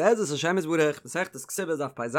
בעזרת השם יתברך, מסכת כתובות דף פ"ז,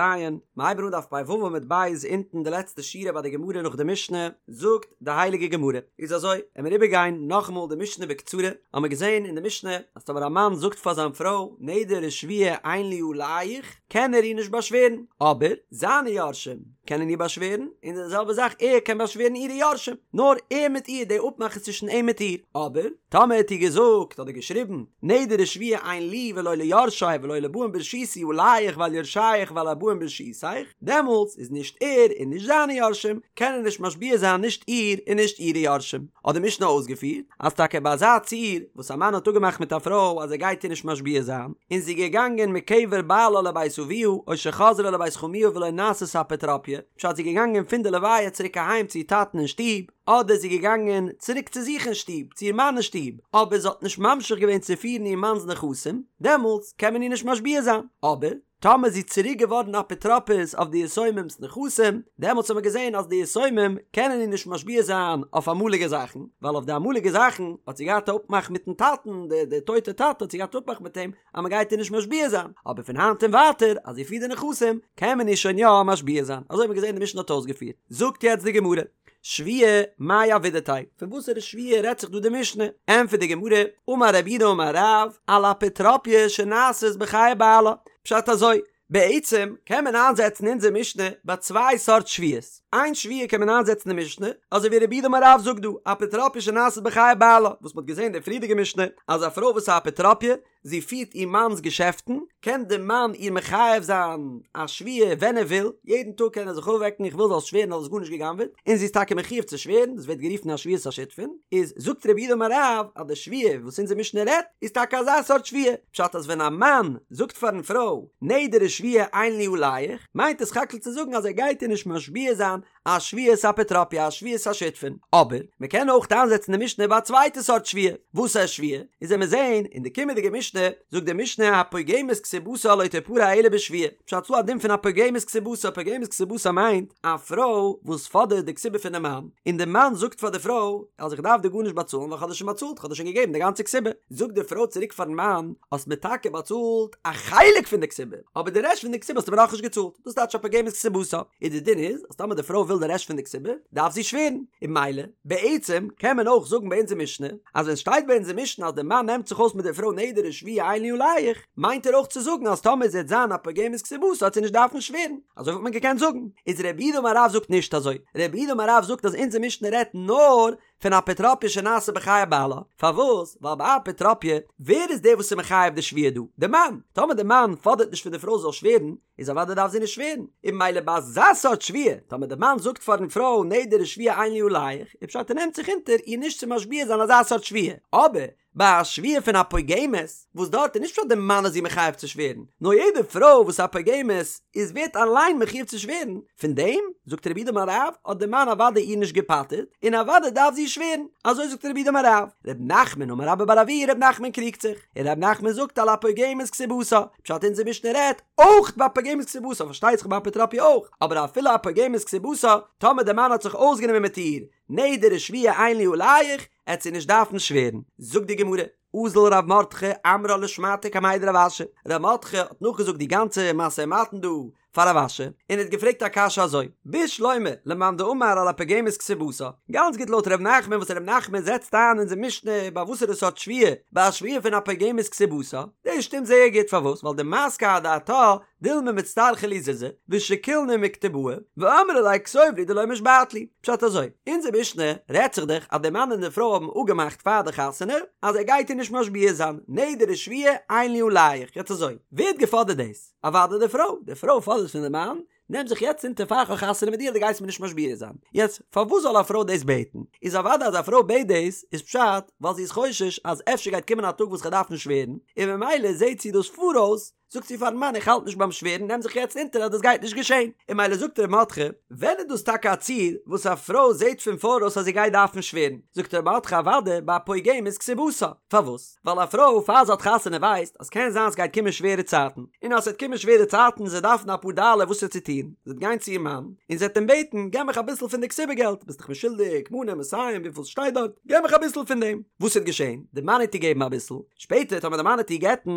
מ'הייבן אן דף פ"ו עמוד ב' אונטן די לעצטע שורה ביי די גמרא נאך די משנה, זאגט די הייליגע גמרא, איז אזוי, עמיר איבערגיין נאכאמאל די משנה בקצרה, האמיר געזען אין די משנה אז טאמער א מאן זאגט פאר זיין פרוי נדר ושבועה אין לי עליך, קען ער איר נישט באשווערן, אבער זיינע יורשים קענען איר באשווערן, און די זעלבע זאך ער קען באשווערן אירע יורשים, נאר ער מיט איר, די אפמאך איז צווישן אים מיט איר, אבער טאמער האט איר געזאגט אדער געשריבן נדר ושבועה אין לי ולא ליורשי ולא לבאים ברשותי עליך ועל יורשיך ועל הבאים ברשותיך, דעמאלטס איז נישט ער און נישט זיינע יורשים קענען נישט משביע זיין נישט איר און נישט אירע יורשים. האט די משנה אויסגעפירט אז טאקע ביי אזא ציור וואס א מאן האט אפגעמאכט מיט א פרוי אז ער גייט איר נישט משביע זיין, און זי איז געגאנגען מקבר בעלה לבית אביה או שחזרה לבית חמיה ולא נעשית אפוטרופיא, פשט זי איז געגאנגען פון די לוויה צוריק אהיים צו איר טאטן אין שטוב, אדער זי איז געגאנגען צוריק צו זיך אין שטוב, צו איר מאן אין שטוב, אבער זי האט נישט ממשיך געווען צו פירן איר מאנ'ס נכסים, דעמאלטס קען מען איר נישט משביע זיין, אבער. טאמער איז זי צוריק געווארן אפוטרופוס אויף די יתומים'ס נכסים, דעמאלטס האט מען געזען אז די יתומים קענען איר נישט משביע זיין אויף אמאליגע זאכן, ווייל אויף די אמאליגע זאכן האט זי געהאט א אפמאך מיטן טאטן, די די טויטע טאטע האט זי געהאט אפמאך מיט אים אז מען גייט איר נישט משביע זיין, אבער פון היינט און ווייטער אז זי פירט די נכסים קען מען איר שוין יא משביע זיין, אזוי האט מען געזען די משנה האט אויסגעפירט. זאגט יעצט די גמרא, שבועה מאי עבידתיה, פון וואסערע שבועה רעדט זיך דא די משנה? ענטפערט די גמרא, אמר רב יהודה אמר רב, על אפוטרופיא שנעשית בחיי בעלה, פשט אזוי, בעצם קען מען איינזעצן אונזער משנה ביי צוויי סארט שבועות, איין שבועה קען מען איינזעצן די משנה, אזוי ווי רב יהודה אמר רב זאגט דא, אפוטרופיא שנעשית בחיי בעלה, וואס מ'האט געזען אין די פריערדיגע משנה, אז א פרוי וואס איז א אפוטרופיא, זי פירט איר מאנ'ס געשעפטן, קען די מאן איר מחייב זיין א שבועה ווען ער וויל, יעדן טאג קען ער זיך אויפוועקן איך וויל זאלסט שווערן אז האסט גארנישט גע'גנב'עט, און זי איז טאקע מחויב צו שווערן, דאס ווערט גערופן א שבועת השותפין, איז זאגט רב יהודה אמר רב אז די שבועה וואס אונזער משנה רעדט איז טאקע אזא סארט שבועה, פשט אז ווען א מאן זאגט פארן פרוי נדר ושבועה אין לי עליך, מיינט עס סך הכל צו זאגן אז ער גייט איר נישט משביע זיין א שבועת אפוטרופיא א שבועת השותפין, אבער מען קען אויך איינזעצן די משנה ביי א צווייטע סארט שבועה, וואס איז שבועה? איז וועמיר זעהן אין די קומענדיגע משנה, זאגט די משנה הפוגמת כתובתה לא תפרע אלא בשבועה, פשט ס'דא א דין פון הפוגמת כתובתה, פוגמת כתובתה מיינט א פרוי וואס פאדערט די כתובה פונעם מאן, און די מאן זאגט פאר די פרוי אז איך דארף דיר גארנישט באצאלן ווייל כ'האב דיר שוין באצאלט, כ'האב דיר שוין געגעבן די גאנצע כתובה, זאגט די פרוי צוריק פארן מאן, האסט מיר טאקע באצאלט א חלק פון די כתובה, אבער די רעשט פון די כתובה האסטו מיר נאכנישט געצאלט, דאס טייטש הפוגמת כתובתה. און די דין איז אז טאמער די פרוי וויל די רעשט פון די כתובה דארף זי שווערן, און ממילא בעצם קען מען אויך זאגן ביי אונזער משנה אז ווען שטייט ביי אונזער משנה אז די מאן נעמט זיך אויס מיט די פרוי נדר ושבועה אין לי עליך מיינט ער אויך צו זאגן אז טאמער זי וועט זיין א פוגמת כתובתה וועט זי נישט דארפן שווערן, אזוי וואלט מען געקענט זאגן, איז רב יהודה אמר רב זאגט נישט אזוי, רב יהודה אמר רב זאגט אז אונזער משנה רעדט נאר פון אפוטרופיא שנעשה בחיי בעלה, פארוואס? ווייל ביי אפוטרופיא ווער איז דער וואס איז מחייב די שבועה דא? די מאן! טאמער די מאן פאדערט נישט פון די פרוי זאל שווערן, איז אוודאי דארף זי נישט שווערן, און ממילא ביי אזא סארט שבועה, טאמער די מאן זאגט פארן פרוי נדר ושבועה אין לי עליך, איז פשט ער נעמט זיך אונטער איר נישט צו משביע זיין אזא סארט שבועה, אבער ביי א שבועה פון א פוגמת, וואס דארט איז נישט פשט די מאן איז איר מחייב צו שווערן, נאר יעדע פרוי וואס איז א פוגמת איז ווערט אליין מחויב צו שווערן, פון דעם, זאגט רב יהודה אמר רב, האט די מאן אוודאי איר נישט געפטר'ט, און אוודאי דארף זי שווערן, אזוי זאגט רב יהודה אמר רב. רב נחמן אמר רבה בר אבוה, רב נחמן קריגט זיך, און רב נחמן זאגט על הפוגמת כתובתה, פשט אונזער משנה רעדט אויך ביי פוגמת כתובתה, פארשטייט זיך ביי אפוטרופיא אויך, אבער אפילו א פוגמת כתובתה, טאמער די מאן האט זיך אויסגענומען מיט איר, נדר ושבועה אין לי עליך, עט זי נישט דארפן שווערן. זאגט די גמרא, אזל רב מרדכי אמרה לשמעתיה קמיה דרב אשי, רב מרדכי האט נאכגעזאגט די גאנצע משא ומתן דא פאר רב אשי, און האט געפרעגט א קשיא אזוי, בשלמא למאן דאמר על הפוגמת כתובתה, גאנץ גוט לויט ר' נחמן וואס ר' נחמן זעצט איין אונזער משנה ביי וואסערע סארט שבועה, ביי א שבועה פון הפוגמת כתובתה, דאס שטימט זייער גוט פארוואס ווייל דמסקי אדעתה דילמא מצטרכי לי זוזי ושקילנא מכתובאי ואמרי ליה כתוב לי דלא משבעת לי, פשט אזוי, אונזער משנה רעדט זיך דאך אז די מאן און די פרוי האבן אפגעמאכט פאר די חתונה אז ער גייט איר נישט משביע זיין, נדר ושבועה אין לי עליך, יעצט אזוי, ווער האט געפאדערט דאס? אוודאי די פרוי, די פרוי פאדערט פון די מאן, נעם זיך יעצט אונטער פאר כ'האב חתונה מיט דיר אז דו גייסט מיר נישט משביע זיין. יעצט, פארוואס זאל א פרוי דאס בעטן? איז אוודאי אז א פרוי בעט דאס, איז פשט ווייל זי איז חושש אז אפשר גייט קומען א טאג וואס כ'דארף דארפן שווערן, און ממילא זעט זי דאס פאראויס, זאגט זי פארן מאן איך האלט נישט ביים שווערן נעם זיך יעצט אונטער אז דאס גייט נישט געשען. און ממילא זאגט ר' מרדכי, ווען איז דאס טאקע א ציור וואס א פרוי זעט פון פאראויס אז זי גייט דארפן שווערן? זאגט ר' מרדכי אוודאי ביי א פוגמת כתובתה. פארוואס? ווייל א פרוי פאר זי האט חתונה ווייסט אז קען זיין סגייט קומען שווערע צייטן, און אז ס'וועט קומען שווערע צייטן זי דארפן אפאר דאלער וואס צו טון, זי וועט גיין צו איר מאן און זי וועט אים בעטן געב מיך אביסל פון די כתובה געלט, ביסט דאך מיר שולדיג מנה מאתים וויפיל ס'שטייט דארט, געב מיך אביסל פון דעם, וואס וועט געשען? די מאן וועט איר געבן אביסל, שפעטער טאמער די מאן וועט איר גט'ן,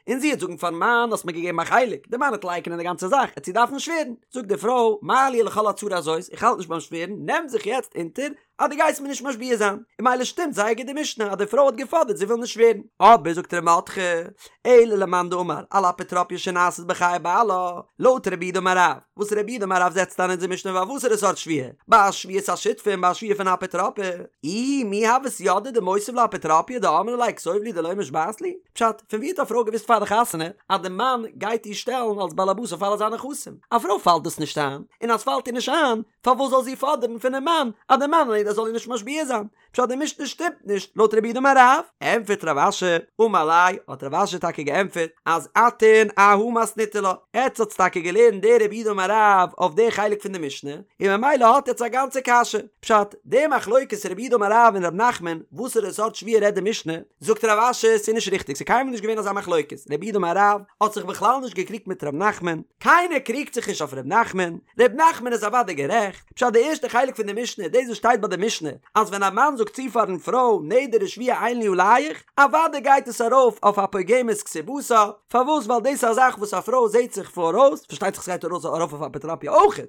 און זי וועט זאגן פארן מאן. מאן האסט מיר געגעבן א חלק, די מאן וועט לייקענען די גאנצע זאך, עט זי דארפן שווערן, זאגט די פרוי, מה לי ולכל הצרה הזאת, איך האלט נישט ביים שווערן, נעם זיך יעצט אונטער אז דו גייסט מיר נישט משביע זיין, און ממילא שטימט זייער גוט די משנה אז די פרוי האט געפאדערט זי וויל נישט שווערן. אבער זאגט ר' מרדכי, אלא למאן דאמר על אפוטרופיא שנעשית בחיי בעלה, לויט רב יהודה אמר רב, וואס רב יהודה אמר רב זעצט איין אונזער משנה ביי וואסערע סארט שבועה? ביי א שבועת השותפים, ביי א שבועה פון אפוטרופיא? איהי מי הות ידעה דמותיב לה אפוטרופיא דאמרה ליה כתוב לי דלא משבעת לי? פשט, פון ווי האט א פרוי געוואוסט פאר די חתונה אז די מאן גייט איר שטעלן אלס באלעבאס אויף אלע זיינע נכסים? א פרוי פאלט דאס נישט איין, און אז ס'פאלט איר נישט איין, פארוואס זאל זי פאדערן פונעם מאן אז די מאן זאל איר נישט משביע זיין? פשט די משנה שטימט נישט לויט רב יהודה אמר רב. ענטפערט רב אשי, אמר ליה, האט רב אשי טאקע געענטפערט אז אתון אהא מתניתו לה, עטץ האטס טאקע געלערנט די רב יהודה אמר רב אויף די חלק פון די משנה, און ממילא האט עטץ א גאנצע קשיא. פשט, די מחלוקת רב יהודה אמר רב און רב נחמן, וואסערע סארט שבועה רעדט די משנה, זאגט רב אשי ס'איז נישט ריכטיג ס'איז קיינמאל נישט געווען אזא מחלוקת, רב יהודה אמר רב האט זיך בכלל נישט געקריגט מיט רב נחמן, קיינער קריגט זיך נישט אויף רב נחמן, ר' נחמן איז אוודאי גערעכט, פשט די ערשטע חלק פון די משנה, דאס וואס שטייט ביי די משנה, אז ווען א מאן זאגט צו פארן פרוי נדר ושבועה אין לי עליך, אוודאי גייט עס ארויף אויף א פוגמת כתובתה, פארוואס ווייל דאס איז א זאך וואס א פרוי זעט זיך פאראויס, פארשטייט זיך ס'גייט ארויף אויף אפוטרופיא אויכעט,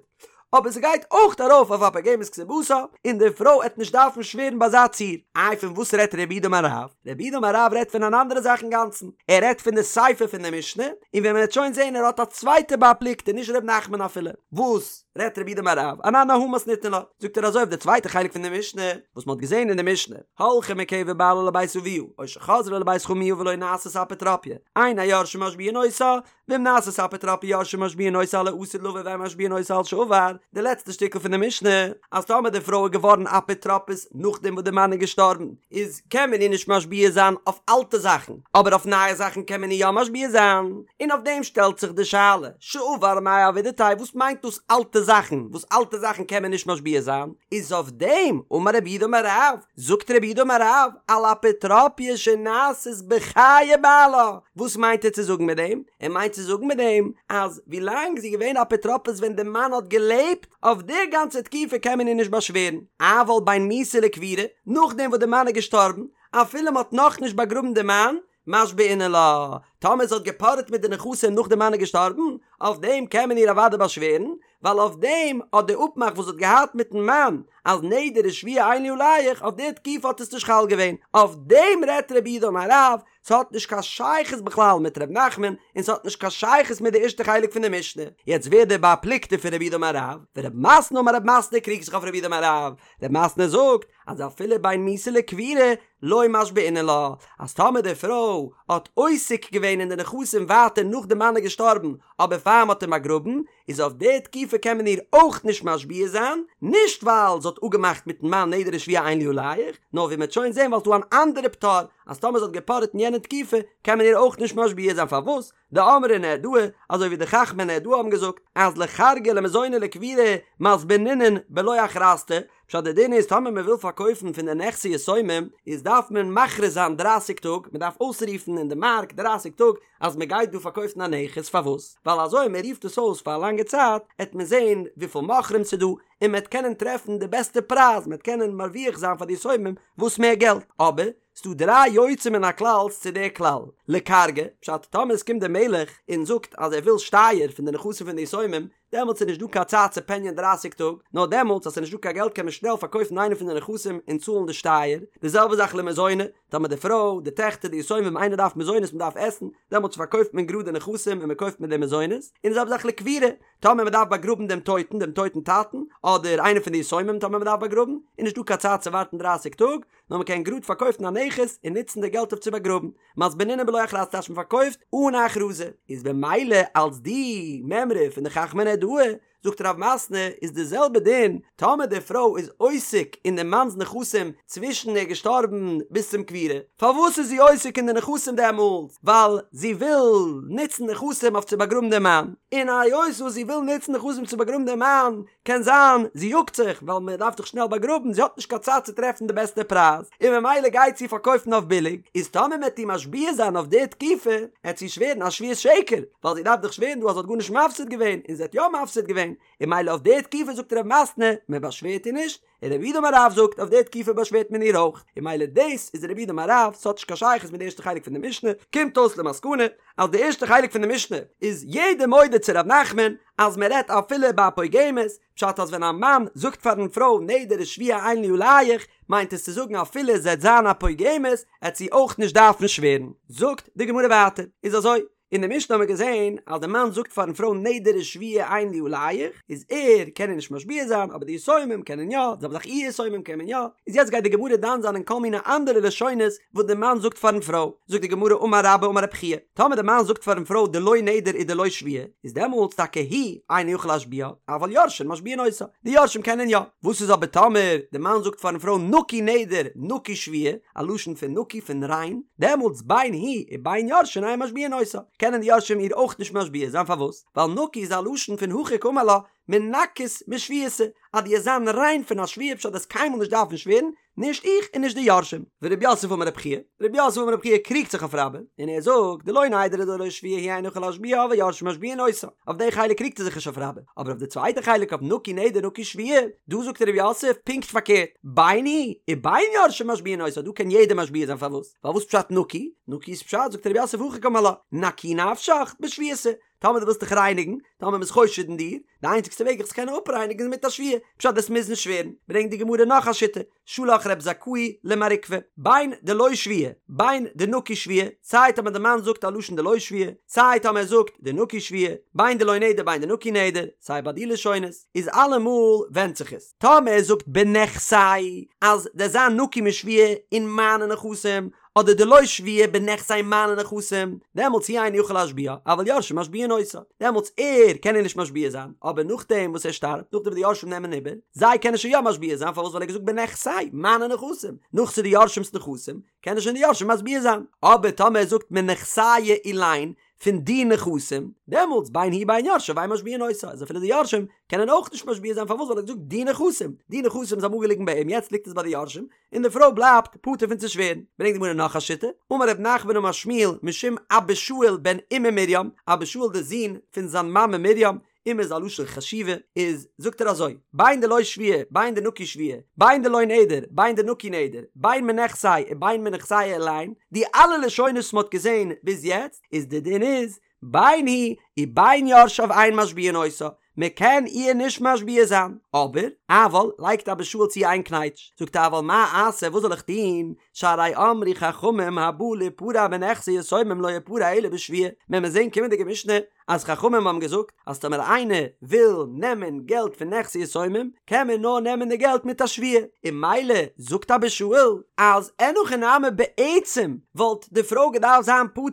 אבער ס'גייט אויך ארויף אויף א פוגמת כתובתה, און די פרוי עט נישט דארפן שווערן ביי אזא ציור. איי פון וואס רעדט רב יהודה אמר רב? רב יהודה אמר רב רעדט פון אן אנדערע זאך אינגאנצן, ער רעדט פון די סיפא פון די משנה, און ווי מען וועט שוין זעהן ער האט א צווייטע בר פלוגתא נישט ר' נחמן אפילו, וואס רעדט רב יהודה אמר רב, אנן אהא מתניתין לה, זאגט ער אזוי אויף די צווייטע חלק פון די משנה, וואס מען האט געזעהן אין די משנה, הלכה מקבר בעלה לבית אביה, או שחזרה לבית חמיה ולא נעשית אפוטרופיא, אין היורשים משביעין אותה, ואם נעשית אפוטרופיא יורשים משביעין אותה על העתיד לבא ואין משביעין אותה על שעבר, די לעצטע שטיקל פון די משנה, אז טאמער די פרוי איז געווארן אפוטרופוס נאכדעם וואס די מאן איז געשטארבן, איז קען מען איר נישט משביע זיין אויף אלטע זאכן, אבער אויף נייע זאכן קען מען איר יא משביע זיין, און אויף דעם שטעלט זיך די שאלה, שעבר מאי עבידתיה, וואס מיינט דאס אלטע זאכן, וואס אלטע זאכן קען מען נישט משביע זיין, איז אויף דעם אמר רב יהודה אמר רב, זאגט רב יהודה אמר רב, על אפוטרופיא שנעשית בחיי בעלה, וואס מיינט ער צו זאגן מיט דעם? ער מיינט צו זאגן מיט דעם אז ווילאנג זי איז געווען אפוטרופוס ווען די מאן האט געלעבט, אויף די גאנצע תקופה קען מען איר נישט באשווערן, אבל בין מיתה לקבורה, נאכדעם וואס די מאן איז געשטארבן, אפילו מען האט נאכנישט באגראבן די מאן, משבעינן לה, טאמער זי האט געפארעט מיט די נכסים נאך די מאן איז געשטארבן, אויף דעם קען מען איר אוודאי באשווערן, ווייל אויף דעם האט די אפמאך וואס זי האט געהאט מיטן מאן אז נדר ושבועה אין לי עליך, אויף די תקופה האט עס נישט חל געווען, אויף דעם רעדט רב יהודה אמר רב, ס'האט נישט קיין שייכות בכלל מיט ר' נחמן, און ס'האט נישט קיין שייכות מיט די ערשטע חלק פון די משנה. יעצט ווער דער בר פלוגתא פון רב יהודה אמר רב, ורב מתנא אמר רב מתנא קריגט זיך אויף רב יהודה אמר רב, רב מתנא זאגט אז אפילו בין מיתה לקבורה לא משבעינן לה, אז טאמער די פרוי האט עוסק געווען אין די נכסים ווייטער נאך די מאן איז געשטארבן אבער פאר מ'האט אים באגראבן, איז אויף די תקופה קען מען איר אויך נישט משביע זיין, נישט ווייל זי האט אפגעמאכט מיטן מאן נדר ושבועה אין לי עליך, נאר ווי מ'וועט שוין זען ווייל ס'דא אן אנדערע פטור אז טאמער זי האט געפארעט אין יענע תקופה קען מען איר אויך נישט משביע זיין פארוואס? דאמרי נהרדעא, אזוי ווי די חכמי נהרדעא האבן געזאגט אז לכרגא למזוני לקבורה מזבנינן בלא הכרזתא, פשט די דין איז טאמער מען וויל פארקויפן פון די נכסי יתומים איז דארף מען מכריז זיין דרייסיג טאג, מען דארף אויסרופן אין די מארק דרייסיג טאג אז מען גייט דא פארקויפן א נכס, פארוואס? ווייל אזוי מען רופט עס אויס פאר א לאנגע צייט עט מען זען וויפיל מוכרים ס'דא און מען עט קענען טרעפן די בעסטע פרייז, מען עט קענען מרוויח זיין פאר די יתומים וואס מער געלט, אבער ס'דא דריי יוצא מן הכלל'ס צו די כלל, לכרגא, פשט טאמער עס קומט דער מלך און זאגט אז ער וויל שטייער פון די נכסים פון די יתומים, דעמאלטס איז נישט דא קיין צייט צו פעניען דרייסיג טאג, נאר דעמאלטס אז ס'איז נישט דא קיין געלט קען מען שנעל פארקויפן איינע פון די נכסים און צאלן די שטייער, די זעלבע זאך למזוני, טאמער די פרוי, די טעכטער, די יתומים, איינער דארף מזונות מען דארף עסן, דעמאלטס פארקויפט מען גראד די נכסים און מען קויפט מיט די מזונות, און די זעלבע זאך לקבורה, טאמער מען דארף באגראבן דעם טויטן, דעם טויטן טאטן, אדער איינער פון די יתומים טאמער מען דארף באגראבן, איז נישט דא קיין צייט צו ווארטן דרייסיג טאג, נאר מען קען גראד פארקויפן א נכס און נוצן די געלט אויף צו באגראבן. מזבנינן בלא הכרזתא טייטש מען פארקויפט אן א הכרזה, איז במילא אלס די מימרא פון די חכמי נהרדעא, זאגט רב מתנא איז די זעלבע דין טאמער די פרוי איז עוסק אין די מאנ'ס נכסים צווישן ער איז געשטארבן ביז צום קבורה, פארוואס איז זי עוסק אין די נכסים דעמאלטס? ווייל זי וויל נוצן נכסים אויף צו באגראבן די מאן, און היות וואס זי וויל נוצן נכסים צו באגראבן דעם מאן, קען זיין זי יאגט זיך ווייל מען דארף דאך שנעל באגראבן, זי האט נישט קיין צייט צו טרעפן די בעסטע פרייז, און ממילא גייט זי פארקויפן אויף ביליג, איז טאמער מען וועט איר משביע זיין אויף די תקופה, עט זי שווערן א שבועת שקר, ווייל זי דארף דאך שווערן דא אז זי האט גארנישט מפסיד געווען, און זי האט יא מפסיד געווען, און ממילא אויף די תקופה זאגט רב מתנה, מען באשווערט איר נישט, און רב יהודה אמר רב זאגט אויף די תקופה באשווערט מען איר אויך, און ממילא דאס איז רב יהודה אמר רב, ס'האט נישט קיין שייכות מיט די ערשטע חלק פון די משנה, קומט אויס למסקנא אז די ערשטע חלק פון די משנה איז יעדער מודה צו ר' נחמן אז מען רעדט אפילו ביי א פוגמת, פשט אז ווען א מאן זאגט פארן פרוי נדר ושבועה אין לי עליך מיינט עס צו זאגן אפילו זי עט זיין א פוגמת עט זי אויך נישט דארפן שווערן. זאגט די גמרא ווייטער, איז אזוי, אין די משנה האבן מיר געזען אז די מאן זאגט פארן פרוי נדר ושבועה אין לי עליך, איז ער קען איר נישט משביע זיין אבער די יתומים קענען יא, די זעלבע זאך איר יתומים קען מען יא, איז יעצט גייט די גמרא דן זיין אין כל מיני אנדערע לשונות וואס די מאן זאגט פארן פרוי, זאגט די גמרא אמר רבה אמר רב חייא, טאמער די מאן זאגט פארן פרוי דלא נדר ודלא שבועה, איז דעמאלטס טאקע הוא אינו יכול להשביעה, אבל יורשין משביעין אותה, די יורשים קענען יא, וואס איז אבער טאמער די מאן זאגט פארן פרוי נקי נדר נקי שבועה, א לשון פון נקי פון ריין, דעמאלטס בין הוא ובין יורשין אין משביעין אותה, קענען די יורשים איר אויך נישט משביע זיין פארוואס? ווייל נקי איז א לשון פון הכי קאמר לה מנכית משבועתא, אז דו עסט זיין ריין פון א שבועה פשט דו עסט קיינמאל נישט דארפן שווערן, נישט איך און נישט די יורשים. ורב יוסף אמר רב חייא, רב יוסף אמר רב חייא קריגט זיך אויף רבה, און ער זאגט, דלא נדר ודלא שבועה הוא אינו יכול להשביעה אבל יורשין משביעין אותה, אויף די חלק קריגט ער זיך נישט אויף רבה, אבער אויף די צווייטע חלק אויף נקי נדר נקי שבועה, דא זאגט רב יוסף פונקט פארקערט, בין הוא ובין יורשין משביעין אותה, דא קען יעדער משביע זיין פארוואס? ווייל וואס פשט נקי? נקי איז פשט זאגט רב יוסף הכי קאמר לה, נקי נפשך בשבועתא, טאמער דו ווילסט דיך רייניגן, טאמער מ'איז חושד אין דיר, די איינציגסטע וועג זיך צו קענען אפרייניגן איז מיט א שבועה, פשט דו'סט מוזן שווערן, ברענגט די גמרא נאך א שיטה, שלח רב זכאי למר עוקבא, בין דלא שבועה, בין דנקי שבועה, סיי טאמער די מאן זאגט א לשון דלא שבועה, סיי טאמער ער זאגט דנקי שבועה, בין דלא נדר בין דנקי נדר, סיי ביי די לשונות, איז אלעמאל ווענדט זיך עס, טאמער ער זאגט בנכסי אז דו'סט זיין נקי משבועה אין מיינע נכסים, אדער דלא שבועה בנכסי מיינע נכסים, דעמאלטס הוא אינו יכול להשביעה, אבל יורשין משביעין אותה, דעמאלטס ער קען איר נישט משביע זיין, אבער נאכדעם וואס ער שטארבט, נאכדעם וואס די יורשים נעמען איבער, זיי קענען שוין יא משביע זיין, פארוואס ווייל ער האט געזאגט בנכסי, מיינע נכסים, נאך ס'איז די יורשים'ס נכסים, קענען שוין די יורשים משביע זיין, אבער טאמער ער זאגט מנכסיא אילין, פון די נכסים, דעמאלטס בין הוא בין יורשיו אין משביעין אותה, אז אפילו די יורשים קענען אויך נישט משביע זיין, פארוואס ווייל ער האט געזאגט די נכסים, די נכסים איז אמאל געליגן ביי אים יעצט ליגט עס ביי די יורשים, און די פרוי בלייבט פטור פון צו שווערן. ברענגט די גמרא נאך א שיטה, אמר רב נחמן אמר שמואל משום אבא שאול בן אימא מרים, אבא שאול דער זון פון זיין מאמע מרים, אימא איז א לשון חשיבה, איז זאגט ער אזוי, בין דלא שבועה, בין דנקי שבועה, בין דלא נדר, בין דנקי נדר, בין מנכסי ובין מנכסיא אילין, די אלע לשונות וואס מען האט געזען ביז יעצט, איז די דין איז, בין הוא ובין יורשיו אין משביעין אותה, מען קען איר נישט משביע זיין, אבער, אבל, לייגט אבא שאול צו איין קנייטש, זאגט ער אבל מה אעשה וואס זאל איך טון, שהרי אמרו חכמים הבא ליפרע מנכסי יתומים לא יפרע אלא בשבועה, מען וועט זען קומענדיגע משנה אז חכמים האבן געזאגט אז טאמער איינער וויל נעמען געלט פון נכסי יתומים קען מען נאר נעמען די געלט מיט א שבועה, און ממילא זאגט אבא שאול אז אין הכי נמי בעצם וואלט די פרוי געדארפט זיין פטור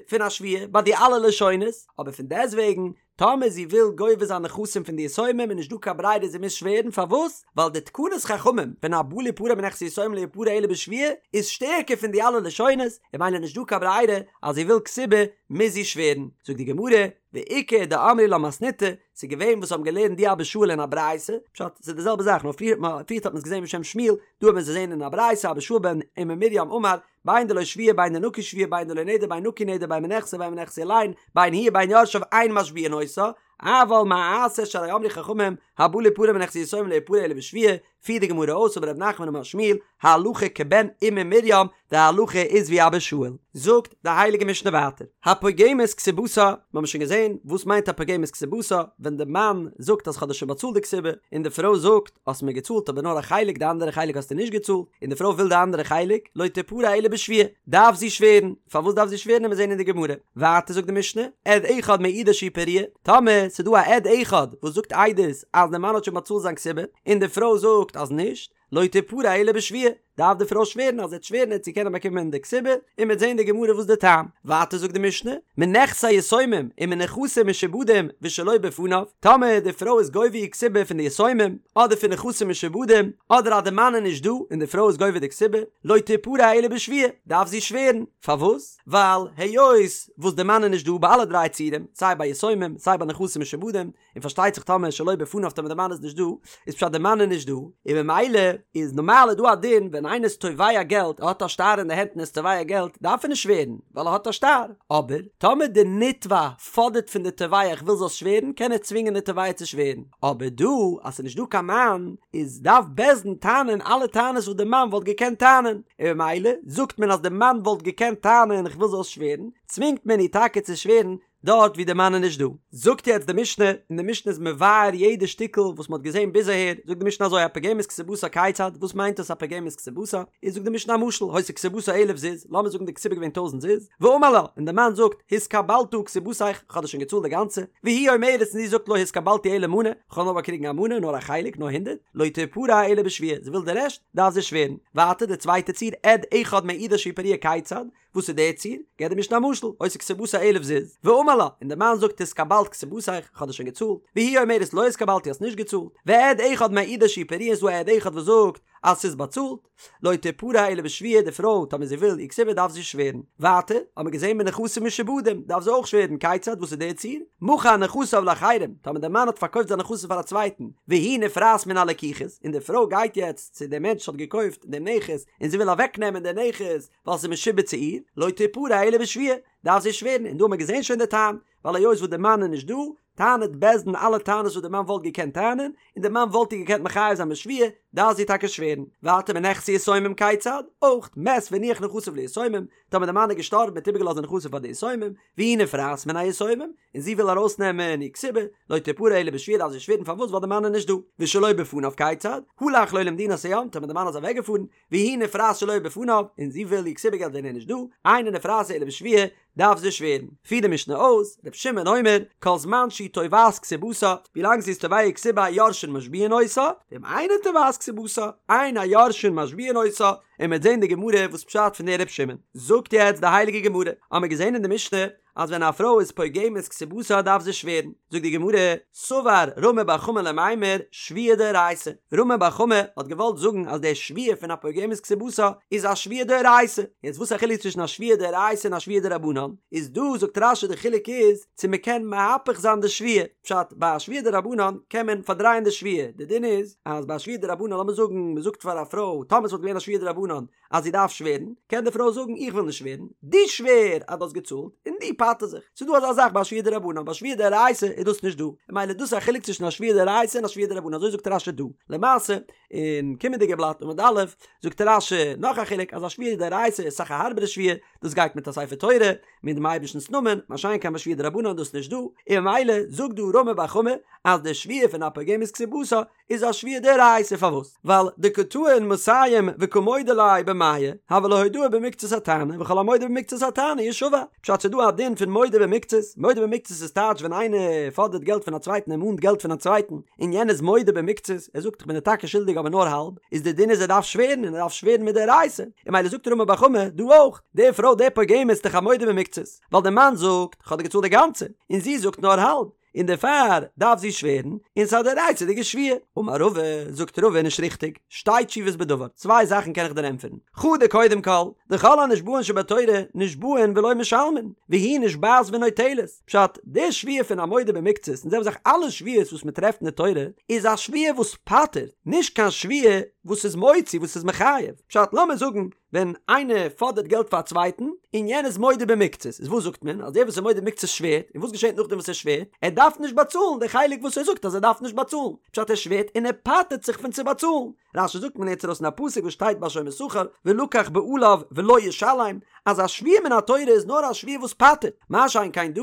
פון א שבועה ביי די אלע לשונות, אבער פון דעסטוועגן טאמער זי וויל גובה זיין נכסים פון די יתומים איז נישט דא קיין ברירה זי מוז שווערן, פארוואס? ווייל די תקנת חכמים פון הבא ליפרע מנכסי יתומים לא יפרע אלא בשבועה איז שטערקער פון די אלע לשונות, און ממילא נישט דא קיין ברירה אז זי וויל כתובה מוז זי שווערן. זאגט די גמרא, ואיכא דאמרי לה מתניתא, ס'איז געווען וואס האבן געלערנט די אבא שאול אין א ברייתא, פשט, ס'איז די זעלבע זאך נאר פריער האט מען עס געזען בשם שמואל, דא האט מען עס געזען אין א ברייתא אבא שאול בן אימא מרים אמר, בין דלא שבועה בין דנקי שבועה בין דלא נדר בין נקי נדר בין מנכסי בין מנכסי אילין בין הוא ובין יורשיו אין משביעין אותה אבל מה אעשה שהרי אמרו חכמים הבא ליפרע מנכסי יתומים לא יפרע אלא בשבועה פירט די גמרא אויס אמר רב נחמן אמר שמואל הלכה כבן אימא מרים די הלכה איז ווי אבא שאול. זאגט די הייליגע משנה ווייטער הפוגמת כתובתה מיר האבן שוין געזען וואס מיינט הפוגמת כתובתה ווען די מאן זאגט אז כ'האב דיר שוין באצאלט די כתובה און די פרוי זאגט האסט מיר געצאלט אבער נאר א חלק די אנדערע חלק האסטו נישט געצאלט, און די פרוי וויל די אנדערע חלק, לא תפרע אלא בשבועה, דארף זי שווערן, פארוואס דארף זי שווערן עמיר זעהן אין די גמרא, ווייטער זאגט די משנה, עד אחד מעידה שהיא פרועה, טאמער ס'איז דא א עד אחד וואס זאגט עדות אז די מאן האט שוין באצאלט זיין כתובה, און די פרוי זאגט אז נישט, לא תפרע אלא בשבועה, דארף די פרוי שווערן אז זי וועט שווערן וועט זי קענען באקומען די כתובה, און מ'וועט זען אין די גמרא וואס די טעם. ווייטער זאגט די משנה, מנכסי יתומים ומנכסים משועבדים ושלא בפניו, טאמער די פרוי איז גובה איר כתובה פון די יתומים, אדער פון נכסים משועבדים, אדער אז די מאן איז נישט דא און די פרוי איז גובה די כתובה, לא תפרע אלא בשבועה, דארף זי שווערן. פארוואס? ווייל היות וואס די מאן איז נישט דא ביי אלע דריי ציורים, סיי ביי יתומים, סיי ביי נכסים משועבדים, און פארשטייט זיך טאמער שלא בפניו טאמער די מאן איז נישט דא, איז פשט די מאן איז נישט דא, און ממילא איז נארמאל איז דא א דין ווען איינער איז תובע געלט, ער האט א שטר אין די הענט און ער איז תובע געלט, דארף ער נישט שווערן, ווייל ער האט א שטר, אבער טאמער די נתבע פאדערט פון די תובע איך וויל זאלסט שווערן, קען ער צווינגען די תובע צו שווערן, אבער דא אז ס'איז נישט דא קיין מאן, איז דארף בית דין טענה'ן אלע טענות וואס די מאן וואלט געקענט טענה'ן, און ממילא זאגט מען אז די מאן וואלט געקענט טענה'ן איך וויל זאלסט שווערן, צווינגט מען איר טאקע צו שווערן, דארט ווי די מאן איז נישט דא. זאגט יעצט די משנה, און די משנה איז מבאר יעדע שטיקל וואס מען האט געזען ביז אהער, זאגט די משנה אזוי הפוגמת כתובתה כיצד, וואס מיינט דאס הפוגמת כתובתה, איז זאגט די משנה א משל, היתה כתובתה אלף זוז, לאמיר זאגן די כתובה איז געווען טויזנט זוז, ואמר לה, און די מאן זאגט, התקבלת כתובתיך, איך האב דיר שוין געצאלט די גאנצע, והיא אומרת און זי זאגט לא התקבלתי אלא מנה, איך האב נאר באקריגן א מנה, נאר א חלק, נאר הונדערט, לא תפרע אלא בשבועה, זי וויל די רעשט, דארף זי שווערן. ווייטער די צווייטע ציור, עד אחד מעידה שהוא פרוע כיצד, וואס איז דער ציור? געבט די משנה א משל, היתה כתובתה אלף זוז, ואמר לה, און דער מאן זאגט התקבלת כתובתיך, איך האב דיר שוין געצאלט, והיא אומרת לא התקבלתי האסט נישט געצאלט, ועד אחד מעידה שהוא פרוע און ס'דא א עד אחד וואס זאגט אז ס'איז באצאלט, לא תפרע אלא בשבועה, די פרוי טאמער זי וויל איר כתובה דארף זי שווערן. ווייטער, האט מען געזען מנכסים משועבדים, דארף זי אויך שווערן, כיצד, וואס איז דער ציור? מכר נכסיו לאחרים, טאמער דער מאן האט פארקויפט זיינע נכסים פאר א צווייטן, והיא נפרעת מן הלקוחות, און די פרוי גייט יעצט צו דעם מענטש וואס האט געקויפט דעם נכס, און זי וויל אוועקנעמען דער נכס, ווייל ס'איז משועבד צו איר, לא תפרע אלא בשבועה, דארף זי שווערן, און דא האט מען געזען שוין די טעם, ווייל היות וואס די מאן איז נישט דא, טענה'ט בית דין אלע טענות וואס די מאן וואלט געקענט טענה'ן, און די מאן וואלט איר געקענט מחייב זיין בשבועה, דארף זי טאקע שווערן. ווייטער מנכסי יתומים כיצד? אויך, מת והניח נכסיו ליתומים, טאמער די מאן איז געשטארבן האט איבערגעלאזט די נכסים פאר די יתומים, והיא נפרעת מן היתומים, און זי וויל ארויסנעמען איר כתובה, לא תפרע אלא בשבועה דארף זי שווערן פארוואס ווייל די מאן איז נישט דא. ושלא בפניו כיצד? הלך לו למדינת הים, טאמער די מאן איז אוועקגעפארן, והיא נפרעת שלא בפניו, און זי וויל איר כתובה געלט ווען ער איז נישט דא, אינה נפרעת אלא בשבועה, דארף זי שווערן. פירט די משנה אויס, ר' שמעון אומר, כל זמן שהיא תובעת כתובתה, ווילאנג זי איז תובע איר כתובה היורשין משביעין אותה, ואם אינה תובעת כתובתה, אין היורשין משביעין אותה, און מ'וועט זען די גמרא וואס פשט פון דער ר' שמעון. זאגט יעצט די הייליגע גמרא, האמיר געזען אין די משנה, אז ווען א פרוי איז פוגמת כתובתה דארף זי שווערן, זאגט די גמרא, סבר רמי בר חמא למימר שבועה דאורייתא, רמי בר חמא האט געוואלט זאגן אז די שבועה פון א פוגמת כתובתה איז א שבועה דאורייתא, יעצט וואס איז א חילוק צווישן א שבועה דאורייתא און א שבועה דרבנן, איז דא זאגט רש"י די חילוק איז צו מען קען מהפך זיין די שבועה, פשט ביי א שבועה דרבנן קען מען פארדרייען די שבועה, די דין איז אז ביי א שבועה דרבנן לאמיר זאגן מען זאגט פאר א פרוי טאמער עס וואלט געווען א שבועה דרבנן אז זי דארף שווערן, קען די פרוי זאגן איך וויל נישט שווערן, דו שווער אז דו האסט געצאלט, און דו פטר זיך. ס'איז דא אזא זאך ביי א שבועה דרבנן, ביי א שבועה דאורייתא איז דאס נישט דא. ממילא דאס איז א חילוק צווישן א שבועה דאורייתא און א שבועה דרבנן, אזוי זאגט רש"י דא. למעשה, אין קומענדיגע בלאט עמוד א', זאגט רש"י נאך א חילוק, אז א שבועה דאורייתא איז אסאך א הארבערע שבועה, דאס גייט מיט א ספר תורה, מיט דעם אייבערשטנ'ס נאמען, מה שאין כן ביי שבועה דרבנן איז דאס נישט דא, און ממילא זאגט דא רמי בר חמא אז די שבועה פון א פוגמת כתובתה איז א שבועה דאורייתא פארוואס? ווייל דקא טעין מאתים וקא מודה ליה במאה הוה לה הודאה במקצת הטענה וכל המודה במקצת הטענה ישבע פשט ס'דא א דין פון מודה במקצת מודה במקצת איז טייטש ווען איינער פאדערט געלט פון א צווייטן ער מאנט געלט פון א צווייטן און יענער איז מודה במקצת ער זאגט איך בין דיר טאקע שולדיג אבער נאר האלב איז די דין איז ער דארף שווערן און ער דארף שווערן מדאורייתא און ממילא זאגט רמי בר חמא דא אויך די פרוי די פוגמת איז דאך א מודה במקצת ווייל די מאן זאגט כ'האב דיר געצאלט די גאנצע און זי זאגט נאר האלב און דערפאר דארף זי שווערן, און ס'איז א דאורייתא'דיגע שבועה. אמר רבא, זאגט רבא נישט ריכטיג, שתי תשובות בדבר, צוויי זאכן קען איך דיר ענטפערן, חדא קודם כל, דכל הנשבעין שבתורה נשבעין ולא משלמין, והיא נשבעת ונוטלת, פשט, די שבועה פון א מודה במקצת, און זעלבע זאך אלע שבועות וואס מען טרעפט אין די תורה, איז א שבועה וואס פטר'ט, נישט קיין שבועה וואס איז מוציא, וואס איז מחייב, פשט, לאמיר זאגן, ווען איינער פאדערט געלט פאר א צווייטן, און יענער איז מודה במקצת, איז וואס זאגט מען? אז דער וואס איז מודה במקצת שווערט, און וואס געשעט נאכדעם וואס ער שווערט? ער דארף נישט באצאלן די חלק וואס ער זאגט אז ער דארף נישט באצאלן, פשט ער שווערט און ער פטר'ט זיך פון צו באצאלן. רש"י זאגט מען לערנט ארויס אין א פסוק וואס שטייט ביי שומר שכר, ולקח בעליו ולא ישלם, אז א שבועה מן התורה איז נאר א שבועה וואס פטר'ט, מה שאין כן דא,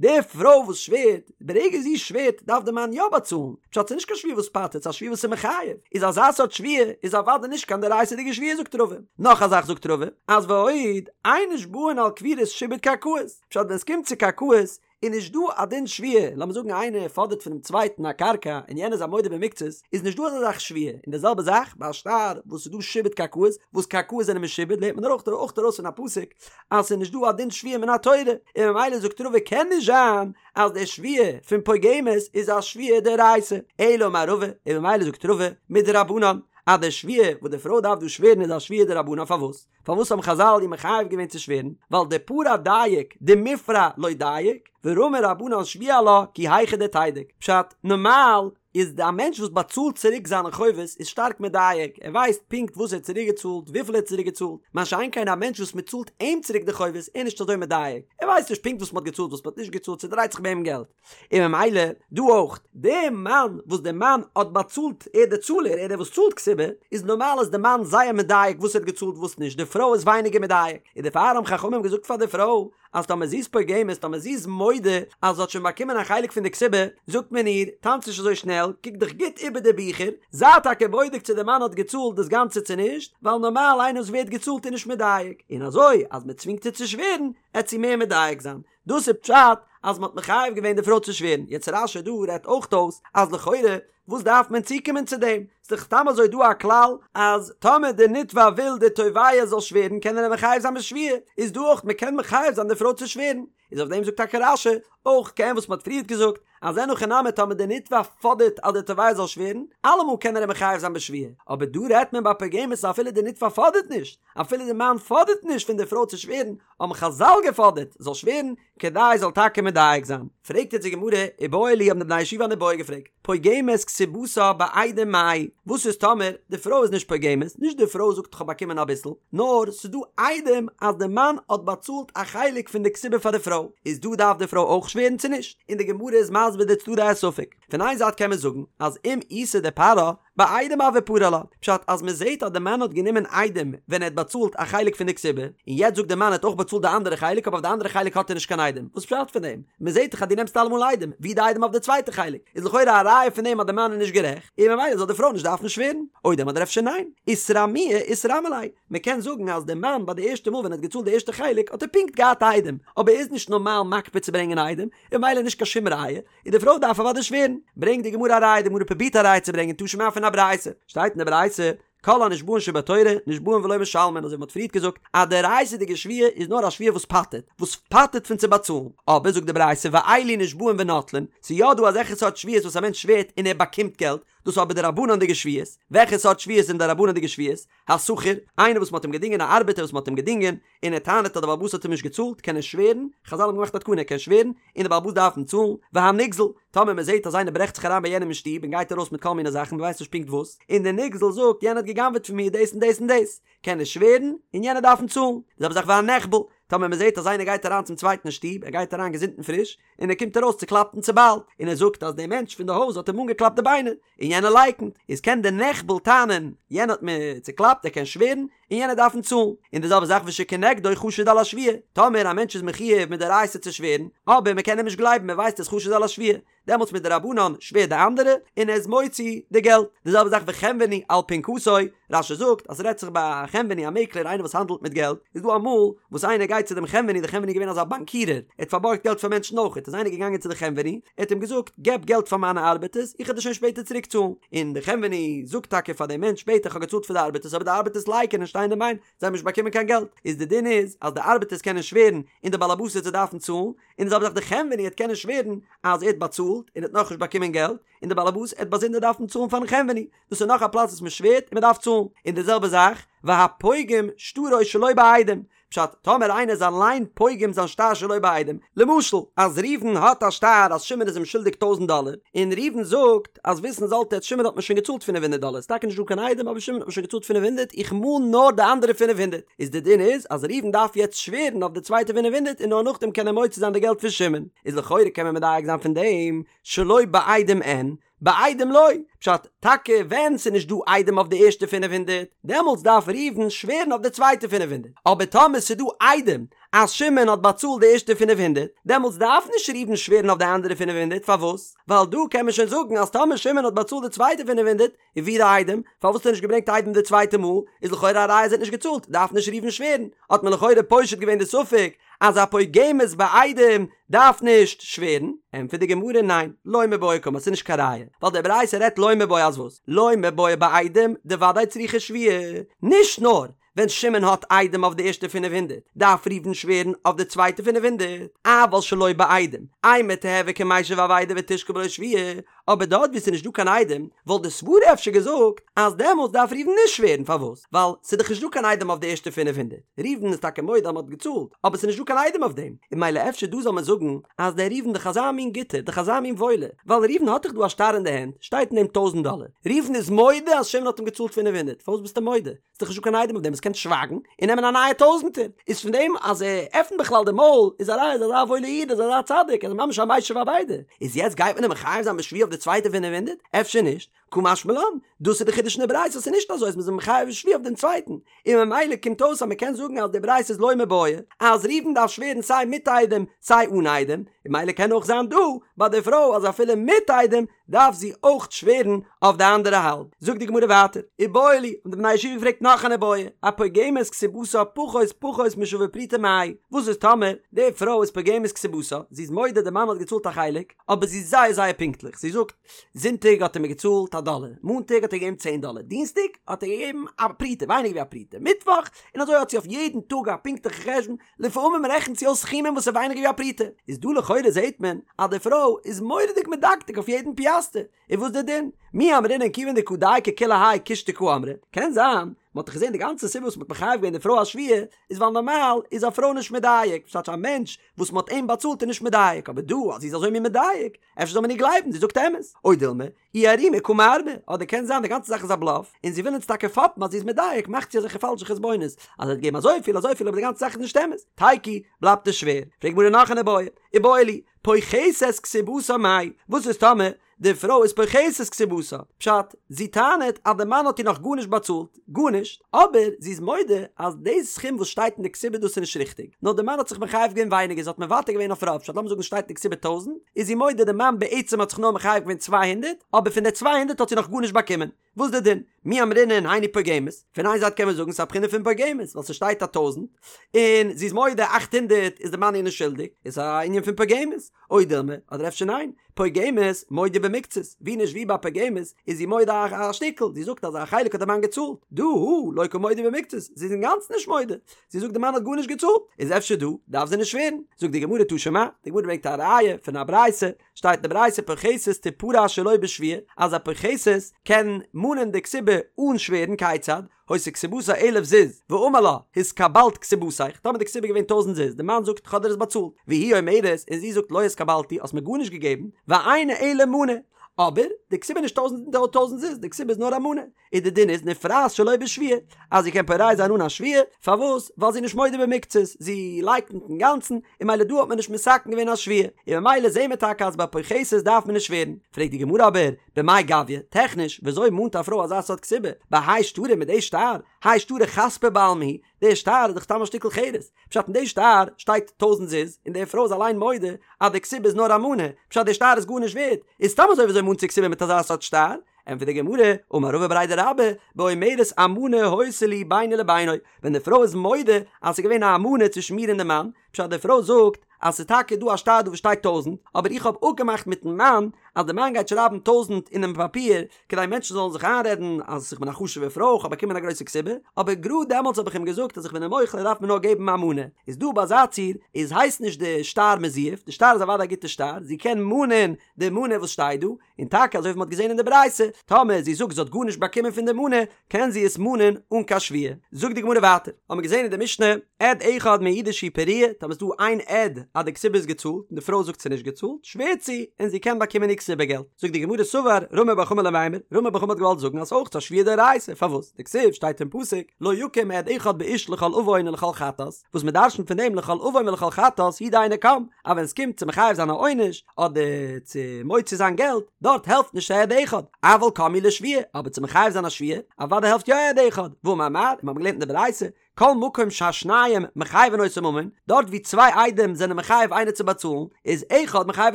די פרוי וואס שווערט, ברגע זי שווערט דארף די מאן יא באצאלן, פשט ס'איז נישט קיין שבועה וואס פטר'ט, ס'איז א שבועה וואס איז מחייב, איז אזא סארט שבועה איז אוודאי נישט קיין דאורייתא'דיגע שבועה זאגט רבא. נאך א זאך זאגט רבא, אז ועוד, אין נשבעין על כפירת שעבוד קרקעות, פשט ווען ס'קומט צו קרקעות, איז נישט דא א דין שבועה, לאמיר זאגן איינער פאדערט פונעם צווייטן א קרקע און יענער איז א מודה במקצת, איז נישט דא אזא זאך שבועה, און די זעלבע זאך ביי א שטר וואס איז דא שעבוד קרקעות, וואס קרקעות זענען משועבד לערנט מען אויך אויך ארויס פון א פסוק אז ס'איז נישט דא א דין שבועה מן התורה, און ממילא זאגט רבא קען נישט זיין אז די שבועה פון פוגמת איז א שבועה דאורייתא, אלא אמר רבא, און ממילא זאגט רבא מדרבנן אז די שבועה וואס די פרוי דארף דא שווערן איז א שבועה דרבנן פארוואס? פארוואס האבן חזל איר מחייב געווען צו שווערן? ווייל דפרע דייק דמיפרע לא דייק, ורמו רבנן שבועה עלה כי היכי דתידוק. פשט, נארמאל איז א מענטש וואס באצאלט צוריק זיינע חובות איז שטארק מדייק, ער ווייסט פונקט וואס ער האט צוריק געצאלט, וויפיל ער האט צוריק געצאלט, מה שאין כן א מענטש וואס מען צאלט אים צוריק די חובות איז נישט אזוי מדייק, ער ווייסט נישט פונקט וואס מען האט געצאלט וואס מען האט נישט געצאלט, ס'דרייט זיך ביי אים געלט. און ממילא דא אויך, די מאן וואס די מאן האט באצאלט, ער דער צאלער, ער דער וואס צאלט כתובה, איז נארמאל איז די מאן זייער מדייק וואס ער האט געצאלט וואס נישט, די פרוי איז ווייניגער מדייק, און דערפאר האבן חכמים געזאגט פאר די פרוי, אז טאמער זי איז פוגמת, טאמער זי איז מודה אז זי האט שוין באקומען א חלק פון די כתובה, זאגט מען איר, טאנץ נישט אזוי שנעל, קוק דיך גוט איבער די ביכער, זיי טאקע בודק צו די מאן האט געצאלט דאס גאנצע צו נישט, ווייל נארמאל איינער וואס ווערט געצאלט איז נישט מדייק, און אזוי אז מען צווינגט איר צו שווערן, עט זי מער מדייק זיין. דאס איז פשט אז מ'האט מחייב געווען די פרוי צו שווערן, יעצט רש"י דא רעדט אויך אויס אז לכאורה וואס דארף מען צוקומען צו דעם, ס'איז דאך סתם אזוי דא א כלל אז טאמער די נתבע וויל די תובע זאל שווערן קען ער אים מחייב זיין בשבועה, איז דא אויך מ'קען מחייב זיין די פרוי צו שווערן, איז אויף דעם זאגט טאקע רש"י אויך כעין וואס מ'האט פריערט געזאגט אז אין הכי נמי טאמער די נתבע פאדערט אז די תובע זאל שווערן, אלעמאל קען ער אים מחייב זיין בשבועה, אבער דא רעדט מען ביי פוגמת אפילו די נתבע פאדערט נישט, אפילו די מאן פאדערט נישט פון די פרוי צו שווערן, האבן חזל געפאדערט זאל שווערן כדי זאל טאקע מדייק זיין. פרעגט יעצט די גמרא, איבעיא להו האבן די בני ישיבה אן איבעיא געפרעגט, פוגמת כתובתה בעדים מאי, וואס איז טאמער די פרוי איז נישט פוגמת, נישט די פרוי זאגט כ'האב באקומען אביסל, נאר ס'איז דא עדים אז די מאן האט באצאלט א חלק פון די כתובה פאר די פרוי, איז דא דארף די פרוי אויך שווערן צו נישט? און די גמרא איז מסביר די צדדי הספק, פון איין זייט קען מען זאגן אז אם איתא דפרעה, בעדים הוה פרע לה, פשט אז מען זעהט אז די מאן האט גענומען עדים ווען ער האט באצאלט א חלק פון די כתובה, און יעצט זאגט די מאן ער האט אויך באצאלט די אנדערע חלק אבער אויף די אנדערע חלק האט ער נישט קיין עדים, וואס פשט פון דעם? מען זעהט דאך אז דו נעמסט אלעמאל עדים, ווי די עדים אויף די צווייטע חלק? איז לכאורה א ראיה פון דעם אז די מאן איז נישט גערעכט, און ממילא זאל די פרוי נישט דארפן שווערן, או דילמא אדער אפשר ניין, איתרמויי איתרמי ליה, מען קען זאגן אז די מאן ביי די ערשטע מאל ווען ער האט געצאלט די ערשטע חלק האט ער פונקט געהאט עדים, אבער ער איז נישט נארמאל מקפיד צו ברענגען עדים, און ממילא נישט קיין שום ראיה, און די פרוי דארף אוודאי שווערן. ברענגט די גמרא א ראיה, די גמרא פרובירט א ראיה צו ברענגען תא שמע פון א ברייתא, שטייט אין די ברייתא, כל הנשבעין שבתורה נשבעין ולא משלמין, אזוי ווי מ'האט פריערט געזאגט אז די דאורייתא'דיגע שבועה איז נאר א שבועה וואס פטר'ט, וואס פטר'ט פון צו באצאלן, אבער זאגט די ברייתא ואלו נשבעין ונוטלין, ס'איז יא דא אזעלכע סארט שבועות וואס א מענטש שווערט און ער באקומט געלט, דאס איז אבער דרבנן'דיגע שבועות, וועלכע סארט שבועות זענען דרבנן'דיגע שבועות? השכיר, איינער וואס מ'האט אים געדינגען, א ארבעטער וואס מ'האט אים געדינגען, און ער טענה'ט אז דער בעל הבית האט אים נישט געצאלט, קען ער שווערן, חזל האבן געמאכט א תקנה, ער קען שווערן, און דער בעל הבית דארף אים צאלן, והנגזל, טאמער מ'זעט אז איינער ברעכט זיך אריין ביי יענעם אין שטוב און גייט ארויס מיט כל מיני זאכן, מ'ווייסט נישט פונקט וואס, און דער נגזל זאגט, יענער האט גע'גנב'עט פון מיר דאס און דאס און דאס, קען ער שווערן, און יענער דארף אים צאלן. די זעלבע זאך והנחבל, טאמער מ'זעט אז איינער גייט אריין צום צווייטן אין שטוב, ער גייט אריין געזונט און פריש, און ער קומט ארויס צוקלאפט און צוביילט, און ער זאגט אז דער מענטש פון די הויז האט אים אנגעקלאפט די ביינער, און יענער לייקנט, איז קען דער נחבל טענה'ן, יענער האט מיר צוקלאפט, ער קען שווערן, און יענער דארף אים צאלן. און די זעלבע זאך ושכנגדו חשוד על השבועה, טאמער א מענטש איז מחויב מדאורייתא צו שווערן, אבער מען קען אים נישט גלייבן, מען ווייסט ער איז חשוד על השבועה, דעמאלטס מדרבנן שווערט די אנדערע, און ער איז מוציא די געלט. די זעלבע זאך וחנווני על פנקסו, רש"י זאגט אז ס'רעדט זיך ביי א חנווני א מעקלער איינער וואס האנדלט מיט געלט, איז דא אמאל וואס איינער גייט צו דעם חנווני, דער חנווני איז געווען אזא באנקירער, ער האט פארבארגט געלט פאר מענטשן אויכעט, איז איינער געגאנגען צו די חנווני, ער האט אים געזאגט געב געלט פאר מיינע ארבעטערס, איך וועל דיר שוין שפעטער צוריק צאלן, און דער חנווני זאגט טאקע פאר דעם מענטש שפעטער איך האב געצאלט פאר די ארבעטערס אבער די ארבעטערס לייקענען שטיין אין ביין, זיי האבן נישט באקומען קיין געלט, איז די דין איז אז די ארבעטערס קענען שווערן און די בעל הבית וועט זיי דארפן צאלן, און די זעלבע זאך די חנווני וועט קענען שווערן אז ער האט באצאלט און ער האט נאכנישט באקומען געלט, און די בעל הבית וועט באזונדער דארפן צאלן פארן חנווני, דאס איז נאך א פלאץ וואס מען שווערט און מען דארף צאלן, און די זעלבע זאך והפוגם שטרו שלא בעדים, פשט, טאמער איינער איז אליין פוגם זיין שטר שלא בעדים, למשל אז ראובן האט א שטר אז שמעון איז אים שולדיג טויזנט דאלער, און ראובן זאגט אז וויסן זאלט עטס שמעון האט מיר שוין געצאלט פינף הונדערט דאלער, ס'איז טאקע נישט דא קיין עדים אבער שמעון האט מיר שוין געצאלט פינף הונדערט, איך מאן נאר די אנדערע פינף הונדערט, איז די דין איז אז ראובן דארף יעצט שווערן אויף די צווייטע פינף הונדערט און נאר נאכדעם קען ער מוציא זיין די געלט פון שמעון, איז לכאורה קען מען מדייק זיין פון דעם שלא בעדים אין, בעדים לא, פשט, טאקע ווען ס'איז נישט דא עדים אויף די ערשטע פינף הונדערט, דעמאלטס דארף ראובן שווערן אויף די צווייטע פינף הונדערט, אבער טאמער ס'איז דא עדים אז שמעון האט באצאלט די ערשטע פינף הונדערט, דעמאלטס דארף נישט ראובן שווערן אויף די אנדערע פינף הונדערט, פארוואס? ווייל דא קען מען שוין זאגן אז טאמער שמעון האט באצאלט די צווייטע פינף הונדערט, און וואו די עדים? פארוואס האט ער נישט געברענגט עדים די צווייטע מאל? איז לכאורה א ראיה אז ער האט נישט געצאלט, דארף נישט ראובן שווערן. האט מען לכאורה פושט געווען די ספק אז א פוגמת בעדים דארף נישט שווערן. ענטפערט די גמרא ניין, לא מיבעיא קאמר, ס'איז נישט קיין ראיה, ווייל די ברייתא רעדט לא מיבעיא אז וואס? לא מיבעיא בעדים דוודאי צריכה שבועה, נישט נאר ווען שמעון האט עדים אויף די ערשטע פינף הונדערט, דארף ראובן שווערן אויף די צווייטע פינף הונדערט, אבל שלא בעדים, אימא תיהוי כמשיב אבידה ותשקול בלא שבועה, אבער דארט וואו ס'איז נישט דא קיין עדים, וואלט די סברה אפשר געזאגט אז דעמאלטס דארף ראובן נישט שווערן, פארוואס? ווייל ס'איז דאך נישט דא קיין עדים אויף די ערשטע פינף הונדערט, ראובן איז טאקע מודה אז מ'האט געצאלט, אבער ס'איז נישט דא קיין עדים אויף דעם, און ממילא אפשר דא זאל מען זאגן אז דער ראובן דאך אזא מין גוטער, דאך אזא מין וואוילער, ווייל ראובן האט דאך דא א שטר אין די הענט, שטייט אין דעם טויזנט דאלער, ראובן איז מודה אז שמעון האט אים געצאלט פינף הונדערט, פארוואס ביסטו מודה? ס'איז דאך נישטא קיין עדים אויף דעם, עס קען שווייגן און נעמען א נייע טויזענטער, איז פון דעם אז ער עפנט בכלל די מויל איז א ראיה אז ער איז אזא וואוילער איד, איז אזא צדיק, ער איז ממש א משיב אבידה, איז יעצט גייט מען אים מחייב זיין בשבועה אויף די צווייטע פינף הונדערט? אפשר נישט? קא משמע לן, דאס איז די חידוש אין די ברייתא אז ס'איז נישט אזוי אז מ'איז אים מחייב בשבועה אויף דעם צווייטן, און ממילא קומט אויס אז מ'קען זאגן אז די ברייתא איז לא מיבעיא אז ראובן דארף שווערן סיי מיט עדים סיי אן עדים, און ממילא קען אויך זיין דא ביי די פרוי אז אפילו מיט עדים דארף זי אויך שווערן אויף די אנדערע האלב. זאגט די גמרא ווייטער, איבעיא להו, האבן די בני הישיבה געפרעגט נאך אן איבעיא, הפוגמת כתובתה פחות פחות משווה פרוטה מאי, וואס איז טאמער די פרוי איז פוגמת כתובתה, זי איז מודה די מאן האט געצאלט א חלק, אבער זי איז זייער זייער פונקטליך, זי זאגט, זונטאג האט ער מיר געצאלט א דאלער, מאנטאג האט ער געגעבן צען דאלער, דינסטאג האט ער געגעבן א פרוטה, ווייניגער ווי א פרוטה, מיטוואך, און אזוי האט זי אויף יעדן טאג א פונקטליכע חשבון, לפעמים רעכנט זי אויס סכומים וואס איז ווייניגער ווי א פרוטה, איז דא לכאורה זעהט מען אז די פרוי איז מורא'דיג מדקדק אויף יעדן פיאסטער, איז וואס די דין? מי אמרינן כיוון דקא דייקא כולי האי קושטא קאמרה, קען זיין, מען האט דאך געזעהן די גאנצע סיבה וואס מען האט מחייב געווען די פרוי א שבועה, איז ווייל נארמאל איז א פרוי נישט מדייק, פשט א מענטש וואס מען האט אים באצאלט איז נישט מדייק, אבער דא אז זי איז אזוי מין מדייק, אפשר זאל מען איר גלייבן, זי זאגט אמת, או דילמא, איערומי קא מערמא, אדער קען זיין די גאנצע זאך איז א בלאף, און זי וויל אונז טאקע פאפן אז זי איז מדייק, מאכט זי אזעלכע פאלשע חשבונות, אז ער האט געגעבן אזויפיל אזויפיל אבער די גאנצע זאך איז נישט אמת. תיקו, בלייבט עס שווער. פרעגט גמרא נאך אן איבעיא, איבעיא להו, פוחתת כתובתה מאי, וואס איז טאמער די פרוי איז פוחתת כתובתה? פשט, זי טענה'ט אז די מאן האט איר נאך גארנישט באצאלט, גארנישט, אבער זי איז מודה אז די סכום וואס שטייט אין די כתובה דאס איז נישט ריכטיג, נאר די מאן האט זיך מחייב געווען ווייניגער זי האט מוותר געווען אויף רוב, פשט לאמיר זאגן שטייט אין די כתובה טויזענט, איז זי מודה די מאן בעצם האט זיך נאר מחייב געווען צוויי הונדערט, אבער פון די צוויי הונדערט האט זי נאך גארנישט באקומען, וואס די דין? מי אמרינן היינו פוגמת, פון איין זייט קען מען זאגן ס'איז א בחינה פון פוגמת ווייל ס'שטייט א טויזענט און זי איז מודה אכט הונדערט איז די מאן איר נישט שולדיג, איז א ענין פון פוגמת, או דילמא, אדער אפשר ניין, פוגמת מודה במקצת, ווי נישט ווי ביי פוגמת איז זי מודה א שטיקל, זי זאגט אז א חלק האט די מאן געצאלט, דא הא לא קא מודה במקצת, זי איז אינגאנצן נישט מודה, זי זאגט די מאן האט גארנישט געצאלט, איז אפשר דא דארף זי נישט שווערן, זאגט די גמרא תא שמע, די גמרא ברענגט א ראיה פון א ברייתא, שטייט אין די ברייתא פוחתת תפרע שלא בשבועה, אז א פוחתת קען מאנען די כתובה אן שווערן, כיצד? היתה כתובתה אלף זוז, ואמר לה, התקבלת כתובתיך, טאמער די כתובה איז געווען טויזנט זוז, די מאן זאגט כ'האב דיר עס באצאלט, והיא אומרת, און זי זאגט לא התקבלתי, האסט מיר גארנישט געגעבן, ואינה אלא מנה, אבער, די כתובה איז נישט טויזנט טויזנט זוז, די כתובה איז נאר א מנה, און די דין איז נפרעת שלא בשבועה, אז זי קען פורע זיין אן א שבועה, פארוואס? ווייל זי איז נישט מודה במקצת, זי לייקנט אינגאנצן, און ממילא דא האט מען נישט מתקן געווען א שבועה, און ממילא זעהן מיר טאקע אז ביי פוחתת דארף מען נישט שווערן, פרעגט די גמרא אבער, במאי גביא, טעכניש, וויאזוי מאנט א פרוי אזא סארט כתובה? בהאי שטרא מיט די שטר? האי שטרא חספא בעלמא הוא, די שטר איז דאך סתם א שטיקל חרס. פשט אין די שטר שטייט טויזנט זוז, און די פרוי איז אליין מודה אז די כתובה איז נאר א מנה, פשט די שטר איז גארנישט ווערט, איז סתם אזוי וויאזוי מאנט זי כתובה מיט אזא סארט שטר? ענטפערט די גמרא, אמר רבא בריה דרבה, באומרת אמנה היתה לי ביני לבינו, ווען די פרוי איז מודה אז ס'איז געווען א אמנה צווישן מיר און די מאן, פשט די פרוי זאגט אז ס'איז טאקע דא א שטר דא וואס שטייט טויזנט, אבער איך האב אפגעמאכט מיטן מאן אז די מאן גייט שרייבן טויזנט אינעם פאפיר כדי מענטשן זאלן זיך איינרעדן אז איך בין א חשוב'ע פרוי, איך האב באקומען א גרויסע כתובה, אבער גראד דעמאלטס האב איך אים געזאגט אז איך בין אים מוחל ער דארף מיר נאר געבן א מנה. איז דא ביי אזא ציור איז הייסט נישט די שטר מזויף, די שטר איז אוודאי א גוטע שטר, זי קען מאנען די מנה וואס שטייט דא, און טאקע אזוי ווי מ'האט געזען אין די ברייתא, טאמער זי זאגט זי האט גארנישט באקומען פון די מנה, קען זי עס מאנען אן קיין שבועה. זאגט די גמרא ווייטער, האמיר געזען אין די משנה, עד אחד מעידה שהיא פרועה, טאמער איז דא איין עד אז די כתובה איז געצאלט, און די פרוי זאגט ס'איז נישט געצאלט, שווערט זי, און זי קען באקומען איר כתובה געלט. זאגט די גמרא סבר רמי בר חמא למימר, רמי בר חמא האט געוואלט זאגן אז אויך א שבועה דאורייתא, פארוואס? דכתיב שטייט אין פסוק, לא יקום עד אחד באיש לכל עון ולכל חטאת, וואס מ'דרשנ'ט פון דעם לכל עון ולכל חטאת הוא דאינו קם, אז ווען עס קומט צו מחייב זיין א עונש, אדער צו מוציא זיין געלט, דארט העלפט נישט א עד אחד, אבל קם הוא לשבועה, אבער צו מחייב זיין א שבועה, אוודאי העלפט יא א עד אחד, והאמר מר, און מיר האבן געלערנט אין די ברייתא, כל מקום שהשניים מחייבין אותו ממון, דארט ווי צוויי עדים זענען מחייב איינער צו באצאלן, איז אחד מחייב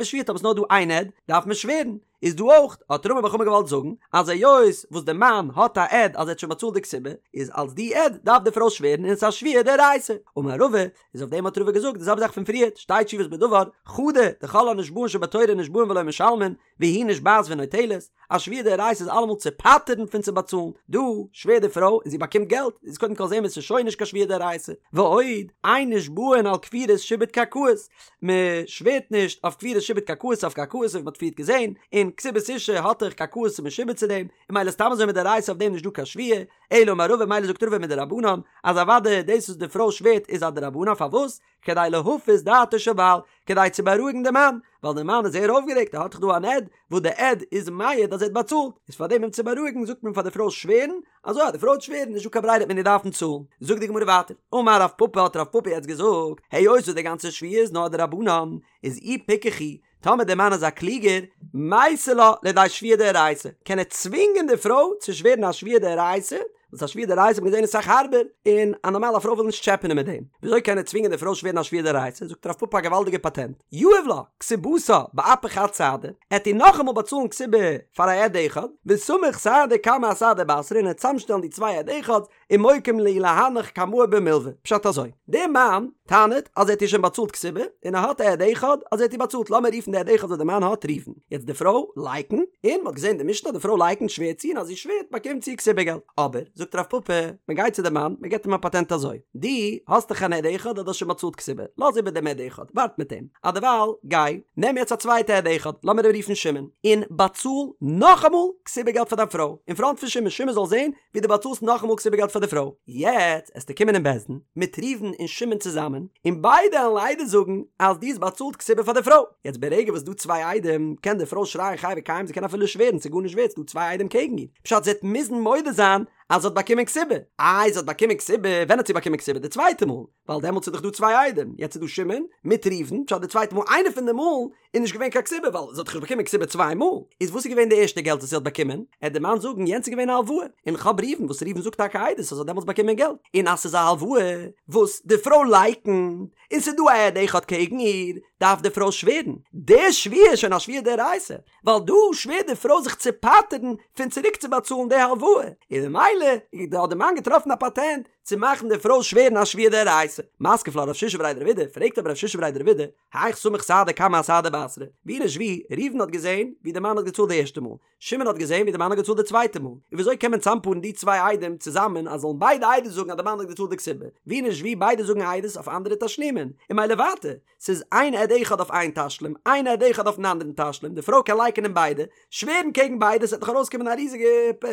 בשבועה, טאמער ס'איז נאר דא איין עד, דארף מען שווערן. איז דא אויך, האט רמי בר חמא געוואלט זאגן, אז היות וואס די מאן האט א עד אז ער האט שוין באצאלט די כתובה, איז אלס די עד דארף די פרוי שווערן און עס איז א שבועה דאורייתא. אמר רבא, איז אויף דעם האט רבא געזאגט די זעלבע זאך פון פריערט, שתי תשובות בדבר, חדא, דכל הנשבעין שבתורה נשבעין ולא משלמין, והיא נשבעת ונוטלת, א שבועה דאורייתא איז אלעמאל צו פטר'ן פון צו באצאלן, דא שווערט די פרוי און זי באקומט געלט, איז קודם כל זעהן מיר ס'איז שוין נישט קיין שבועה דאורייתא, ועוד, אין נשבעין על כפירת שעבוד קרקעות, מען שווערט נישט אויף כפירת שעבוד קרקעות אויף קרקעות ווי מען האט פריערט געזעהן, און כתובת אשה האט דאך קרקעות איז משועבד צו דעם, און ממילא סתם אזוי מדאורייתא אויף דעם נישט דא קיין שבועה, אלא אמר רבא ממילא זאגט רבא מדרבנן, אז אוודאי דאס וואס די פרוי שווערט איז א דרבנן פארוואס? כדי להפיס דעתו של בעל, כדי צו בארואיגן די מאן, ווייל די מאן איז זייער אויפגערעגט ער האט דאך דא אן עד, וואס די עד איז מעיד אז ער האט באצאלט, איז פאר דעם אים צו בארואיגן זאגט מען פאר די פרוי שווערן, אזוי אז די פרוי וועט שווערן נישט דא קיין ברירה וועט מען איר דארפן צאלן. זאגט די גמרא ווייטער, אמר רב פפא האט רב פפא יעצט געזאגט, היות וואס די גאנצע שבועה איז נאר דרבנן, איז אי פיקח הוא, טאמער דער מאן איז א קלוגער, מייתי לה לידי שבועה דאורייתא, קען ער צווינגען די פרוי צו שווערן א שבועה דאורייתא, וואס א שבועה דאורייתא האט מען געזען איז אסאך הארבער, און א נארמאלע פרוי וויל נישט טשעפענען מיט דעם. וויאזוי קען ער צווינגען די פרוי שווערן א שבועה דאורייתא? זאגט רב פפא א געוואלדיגע פאטענט, יהיב לה כתובתה באפי חד סהדא, ער וועט איר נאכאמאל באצאלן כתובה פאר א עד אחד, וסמיך סהדא קמא אסהדא בתרא און ער וועט צאמשטעלן די צוויי עד אחד'ס, ומוקים להו להנך קמאי במלוה. פשט אזוי, דער מאן טענה'ט אז ער האט איר שוין באצאלט כתובה, און ער האט א עד אחד אז ער האט איר באצאלט, לאמיר רופן די עד אחד וואס די מאן האט ראובן. יעצט די פרוי לייקנט, און מ'האט געזען די משנה אז די פרוי לייקנט שווערט זי און אז זי שווערט באקומט זי כתובה געלט. אבער, זאגט רב פפא, מען גייט צו די מאן, מען געבט אים א פאטענט אזוי, דו האסט דאך אן עד אחד אז דו האסט שוין באצאלט כתובה, לאז איבער דעם עד אחד, ווארט מיט אים, אדערווייל גיי, נעם יעצט א צווייטע עד אחד, לאמיר אים רופן שמעון, און באצאל נאכאמאל כתובה געלט פאר דיין פרוי, אין פראנט פון שמעון, שמעון זאל זען ווי דו באצאלסט נאכאמאל כתובה געלט פאר די פרוי. יעצט עסטו קומען אין בית דין מיט ראובן און שמעון צוזאמען, און ביידע עלן עדות זאגן אז דו האסט באצאלט כתובה פאר די פרוי. יעצט ברגע וואס ס'דא צוויי עדים, קען די פרוי שרייען חי וקיים, זי קען אפילו שווערן, ס'איז גארנישט ווערט, ס'דא צוויי עדים קעגן איר. פשט זי וועט מוזן מודה זיין אז זי האט באקומען כתובה. איי זי האט באקומען כתובה, ווען האט זי באקומען כתובה? די צווייטע מאל, ווייל דעמאלטס איז דאך דא צוויי עדים, יעצט איז דא שמעון מיט ראובן, פשט די צווייטע מאל איינע פון די מאלן איז נישט געווען קיין כתובה ווייל זי האט דאך נישט באקומען כתובה צוויי מאל, איז וואס איז געווען די ערשטע געלט וואס זי האט באקומען? עט די מאן זאגן יענץ איז געווען א הלוואה, און כ'האב ראובן וואס ראובן זאגט טאקע עדות אז זי האט דעמאלטס באקומען געלט, און אז ס'איז א הלוואה וואס די פרוי לייקנט, און ס'איז דא א עד אחד קעגן איר, דארף די פרוי שווערן, די שבועה איז שוין א שבועה דאורייתא, ווייל דא שווערט די פרוי זיך צו פטר'ן פון צוריק צו באצאלן די הלוואה, און ממילא האט די מאן געטראפן א פאטענט צו מאכן די פרוי שווערן א שבועה דאורייתא. מתקיף לה רב שישא בריה דרב אידי, פרעגט אבער רב שישא בריה דרב אידי, היאך סמיך סהדא קמא אסהדא בתרא, ווי נישט ווי, ראובן האט געזען ווי די מאן האט געצאלט די ערשטע מאל, שמעון האט געזען ווי די מאן האט געצאלט די צווייטע מאל, און וויאזוי קען מען צאמפארן די צוויי עדים צוזאמען אז זאלן ביידע עדות זאגן אז די מאן האט געצאלט די כתובה, ווי נישט ווי ביידע זאגן עדות אויף אנדערע תשלומין, און ממילא ווייטער, ס'איז איין עד אחד אויף איין תשלום, איין עד אחד אויפן אנדערן תשלום, די פרוי קען לייקענען ביידע, שווערן קעגן ביידע, ס'וועט דאך ארויסקומען א ריזיגע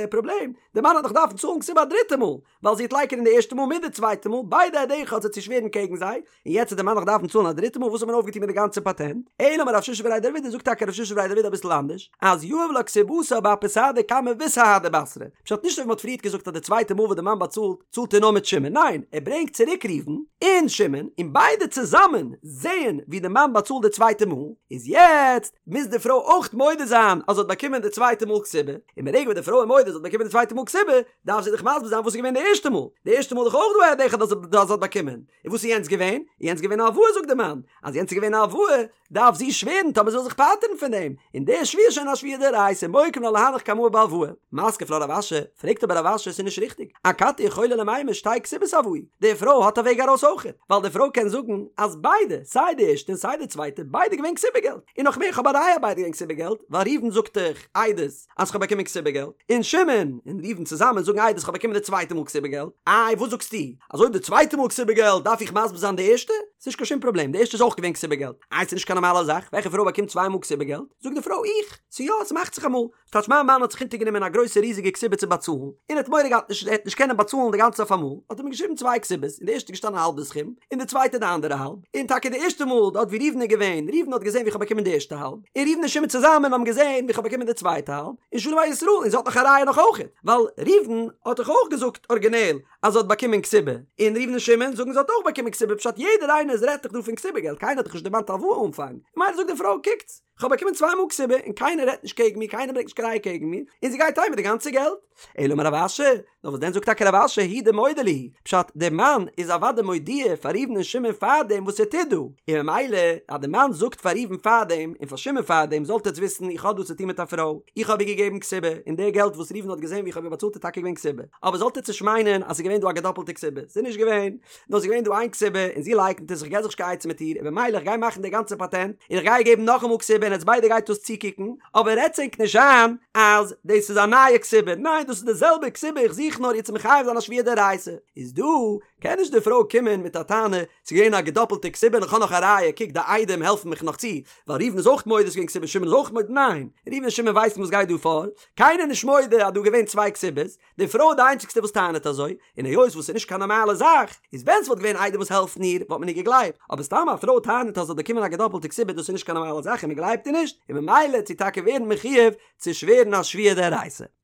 פראבלעם, די מאן וועט דאך דארפן צאלן כתובה א דריטע מאל, ווייל זי וועט לייקענען די ערשטע מאל מיט די צווייטע מאל, ביידע עד אחד וועט זי שווערן קעגן זיי, און יעצט וועט די מאן נאך דארפן צאלן א דריטע מאל, וואס האט מען אויפגעטון מיט די גאנצע פאטענט? אלא אמר רב שישא בריה דרב אידי, זאגט טאקע רב שישא בריה דרב אידי אביסל אנדערש, אז יהיב לה כתובתה באפי סהדא קמא וסהדא בתרא, פשט נישט אזוי ווי מ'האט פריערט געזאגט אז די צווייטע מאל וואס די מאן באצאלט, צאלט ער נאר מיט שמעון, ניין, ער ברענגט צוריק ראובן און שמעון, און ביידע צוזאמען זעען ווי די מאן באצאלט די צווייטע מאל, איז יעצט מוז די פרוי אויך מודה זיין אז זי האט באקומען די צווייטע מאל כתובה, און ברגע וואס די פרוי איז מודה אז זי האט באקומען די צווייטע מאל כתובה, דארף זי דאך מסביר זיין וואס איז געווען די ערשטע מאל, די ערשטע מאל איז דאך אויך דא א עד אחד אז זי האט באקומען, און וואס איז יענץ געווען? יענץ געווען א הלוואה זאגט די מאן, אז יענץ איז געווען א הלוואה, דארף זי שווערן טאמער זי וויל זיך פטר'ן פון דעם, און די שבועה איז שוין א שבועה דאורייתא מוקים לה להנך קמאי בהלוואה. מתקיף לה רב אשי, פרעגט אבער רב אשי עס איז נישט ריכטיג, אכתי יכולה למימר שתי כתובות הואי, די פרוי האט א וועג ארויס אויכעט, ווייל די פרוי קען זאגן אז ביידע, סיי די ערשטע און סיי די צווייטע, ביידע געווען כתובה געלט, און נאך מער איך האב א ראיה ביידע געווען כתובה געלט, ווייל ראובן זאגט דאך עדות אז כ'האב באקומען כתובה געלט, און שמעון און ראובן צוזאמען זאגן עדות כ'האב באקומען די צווייטע מאל כתובה געלט, איי וואס זאגסטו אז אויב די צווייטע מאל כתובה געלט דארף איך מסביר זיין די ערשטע? ס'נישט קיין שום פראבלעם, די ערשטע איז אויך געווען כתובה געלט. איי ס'נישט קיין נארמאלע זאך, וועלכע פרוי באקומט צוויי מאל כתובה געלט? זאגט די פרוי, איך! ס'יא, ס'מאכט זיך אמאל. ס'טייטש מיין מאן האט זיך אונטערגענומען א גרויסע ריזיגע כתובה צו באצאלן, און ער האט מורא געהאט נישט ער וועט נישט קענען באצאלן די גאנצע אויף אמאל, האט ער מיר געשריבן צוויי כתובות, אין די ערשטע איז געשטאנען האלב די סכום, און די צווייטע די אנדערע האלב. און טאקע די ערשטע מאל דארט ווי ראובן איז געווען, ראובן האט געזען ווי כ'האב באקומען די ערשטע האלב, און ראובן און שמעון צוזאמען האבן געזען ווי כ'האב באקומען די צווייטע האלב, און שלום על ישראל, און זי האט נאך א ראיה נאך אויכעט, ווייל ראובן האט דאך אויך געזאגט ארגינעל אז זי האט באקומען כתובה, און ראובן און שמעון זאגן זי האט אויך באקומען כתובה, פשט יעדער איינער איז רעדט דאך דא פון כתובה געלט, קיינער האט דאך נישט דערמאנט הלוואה אנפאנג, ממילא זאגט די פרוי קוקטס. כ'האב באקומען צוויי מאל כתובה און קיינער רעדט נישט קעגן מיר, קיינער ברענגט נישט קיין ראיה קעגן מיר, און זי גייט אהיים מיט די גאנצע געלט. אלא אמר רב אשי, נאר וואס דען זאגט טאקע רב אשי הוא דמודע להו, פשט דער מאן איז אוודאי מודיע פאר ראובן און שמעון פארדעם וואס ער טוט דא, און ממילא אז דער מאן זאגט פאר ראובן פארדעם און פאר שמעון פארדעם זאלט עטץ וויסן איך האב דא צו טון מיט א פרוי, איך האב איר געגעבן כתובה, און די געלט וואס ראובן האט געזען ווי איך האב איר באצאלט איז טאקע געווען כתובה, אבער זאלט עטץ נישט מיינען אז ס'איז געווען דא א געדאפלטע כתובה, ס'איז נישט געווען, נאר ס'איז געווען דא איין כתובה און זי לייקנט עס, איך גיב זיך נישט קיין עצה מיט איר, און במילא איך גיי מאכן די גאנצע פאטענט, און איך גיי איר געבן נאכאמאל כתובה און עטס ביידע גייט דאס צוקוקן, אבער רעדטס ענק נישט איין אז דאס איז א נייע כתובה, ניין דאס איז די זעלבע כתובה איך זוך נאר איר צו מחייב זיין א שבועה דאורייתא, איז דא קען נישט די פרוי קומען מיט א טענה ס'איז געווען א געדאפלטע כתובה און איך האב נאך א ראיה קוק די עדים העלפן מיך נאך צו, ווייל ראובן איז אויך מודה ס'איז געווען כתובה שמעון איז אויך מודה, ניין ראובן און שמעון ווייסן וואס גייט דא פאר, קיינער איז נישט מודה אז דא געווען צוויי כתובות, די פרוי איז די איינציגסטע וואס טענה'ט אזוי, און היות וואס ס'איז נישט קיין נארמאלע זאך, איז ווען ס'וואלט געווען עדים וואס העלפן איר, וואלט מען איר געגלייבט, אבער סתם א פרוי טענה'ט אז זי האט באקומען א געדאפלטע כתובה דאס איז נישט קיין נארמאלע זאך און מ'גלייבט איר נישט, און ממילא וועט זי טאקע ווערן מחויב צו שווערן א שבועה דאורייתא.